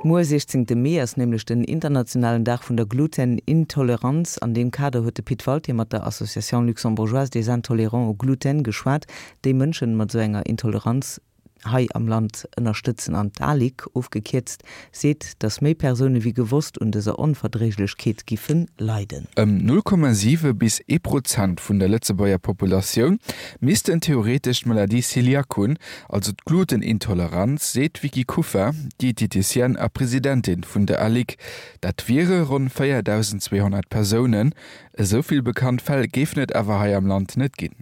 Muer, 16 Mee, ass nämlech den internationalen Dag vun der Glutenintoleranz. An deem Kader huet de Pit Walté mat der Association luxembourgeoise des intolérants au gluten geschwat, déi Mënschen mat esou enger Intoleranz hei am Land ënnerstëtzen. An d'ALIG, ofgekierzt, seet, datt méi Persoune wéi gewosst un dëser Onverdréiglechkeet giffe leiden. Ëm 0,7 bis ee Prozent vun der Lëtzebuerger Populatioun missten theoretesch d'Maladie Celiac hunn, Also d'Glutenintoleranz, seet d'Vicky Kuffer, Dieteticienne a Presidentin vun der ALIC. Dat wiere ronn 4.200 Persounen. Esou vill bekannt Fäll géifen et awer hei am Land net ginn.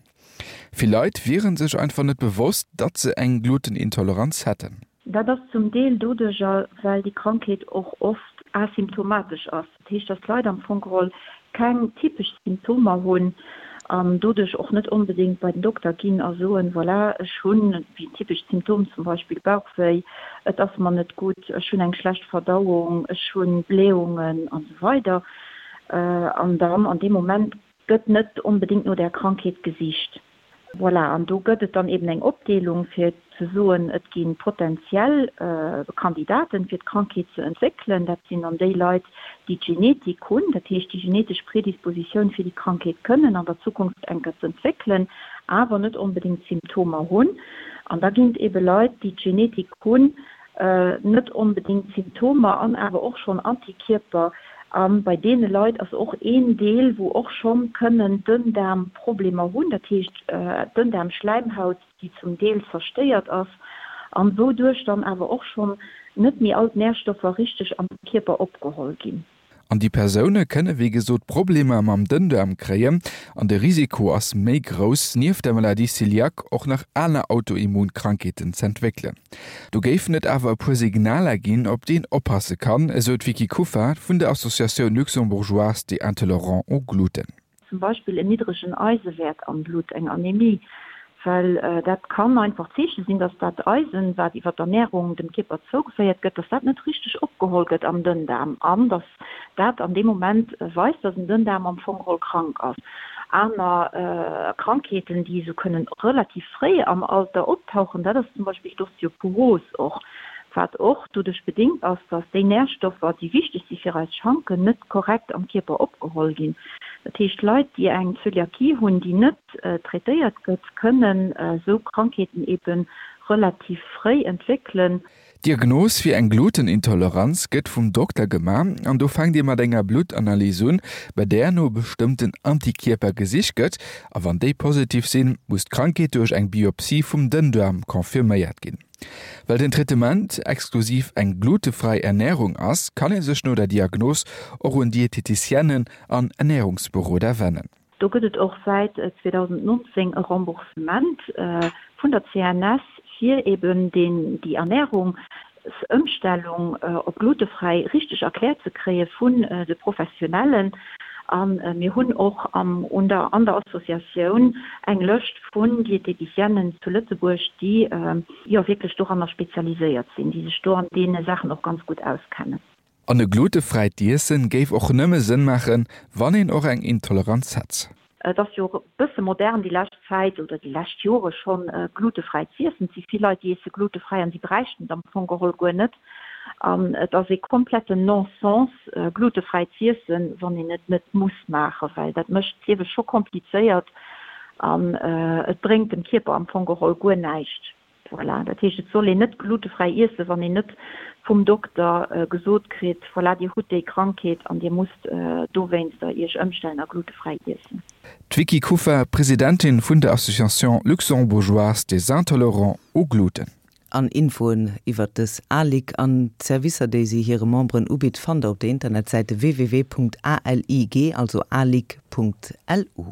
Vill Leit wiere sech einfach net bewosst, datt se eng Glutenintoleranz hätten. Dat ass zum Deel doduercher, well déi Krankheet och oft asymptomatesch ass. Dat heescht, dass d'Leit am Fong geholl keng typesch Symptomer hunn an doduerch och net onbedéngt bei den Dokter ginn a soen, voilà, ech hunn, wéi en typescht Symptom zum Beispill Bauchwéi, et ass mer net gutt, ech hunn eng schlecht Verdauung, ech hu Blähungen an esou weider. An dann an deem Moment gëtt net onbedéngt no där Krankheet gesicht. Voilà, an do gëtt et dann eben eng Opdeelung, fir ze soen, et gi potentiell Kandidaten, fir d'Krankheet ze entwéckelen. Dat sinn dann déi Leit, déi d'Genetik hunn, dat heescht déi genetesch Predispositioun fir déi Krankheet kënnen an der Zukunft enker z'entwéckelen, awer net onbedéngt d'Symptomer hunn. An da ginn et ebe Leit, déi d'Genetik hunn, net onbedéngt Symptomer an awer och schonn Antikierper. A bei deene Leit ass och een Deel, wou och schonn kënnen Dënndaarmproblemer hunn, dat heescht Dënndaarmschläimhaut, déi zum Deel zerstéiert ass an wouduerch dann awer och schonn net méi all d'Närstoffer richteg am Kierper opgeholl ginn. An déi Persoune kënne wéi gesot Problemer mam Dënndaarm kréien an de Risiko ass méi grouss, nieft der Maladie cœliaque och nach aner Autoimmunkrankheeten z'entwéckelen. Do géifen et awer e puer Signaler ginn, op déi een oppasse kann, esou d'Vicky Kuffer vun der Associatioun luxembourgeoise des intolérants au gluten. Zum Beispill en niddregen Eisewäert am Blutt, eng Anemie, well dat kann einfach Zeeche sinn, dass dat Eisen, wat iwwer d'Ernärung dem Kierper zougeféiert gëtt, dass dat net richteg opgeholl gëtt am Dënndaarm an dass dat an deem Moment weist, dass en Dënndaarm am Fong geholl krank ass. Aner Krankheeten, déi esou kënnen relativ fréi am Alter optauchen, dat ass zum Beispill d'Osteoporos och, wat och doduerch bedéngt ass, dass déi Närstoffer, déi wichteg si fir eis Schanken, net korrekt am Kierper opgeholl ginn. Dat heescht, Leit, déi eng Zöliakie hunn, déi net traitéiert gëtt, kënnen esou Krankheeten ebe relativ fréi entwéckelen. D'Diagnos fir eng Glutenintoleranz gëtt vum Dokter gemaach an do fänkt ee mat enger Bluttanalys un, bei där no bestëmmten Antikierper gesicht gëtt a wann déi positiv sinn, muss d'Krankheet duerch eng Biopsie vum Dënndaarm confirméiert ginn. Well den Traitement exklusiv eng glutefräi Ernärung ass, kann ee sech no der Diagnos och un Dieteticienne an Ernärungsberoder wennen. Do gëtt et och säit 2019 e Remboursement vun der CNS fir eben deen déi Ernärungsëmstellung op glutefräi richteg erkläert ze kréie vun de Professionellen. A mir hunn och am un der an der Associatioun eng Lëscht vun Dieteticienen zu Lëtzebuerg, déi jo wierklech doranner spezialiséiert sinn, déi sech do an deene Saachen och ganz gutt auskennen. An e glutefräit Iessen géif och nëmme Sënn maachen, wann een och eng Intoleranz hätt. Et ass jo e bësse modern déi lescht Zäit oder déi lescht Jore schonn, glutefräi z'iessen. Et si vill Leit, déi iesse glutefräi an si bräichten et am Fong geholl guer net. An et ass ee kompletten Non-sens, glutefräi z'iessen, wann een et net muss maachen, well dat mécht d'Liewe scho komplizéiert an et bréngt dem Kierper am Fong geholl guer näischt. Voilà, dat heescht, et soll een net glutefräi iessen, wann een net vum Dokter gesot kritt, voilà, Dir hutt déi Krankheet an Dir musst dowéinster Iech ëmstellen a glutefräi iessen. D'Vicky Kuffer, Presidentin vun der Association luxembourgeoise des intolérants au gluten. An Infoen iwwert dës ALIG an d'Servicer déi si hire Memberen ubitt fannt der op der Internetsäite www.alig, also alig.lu.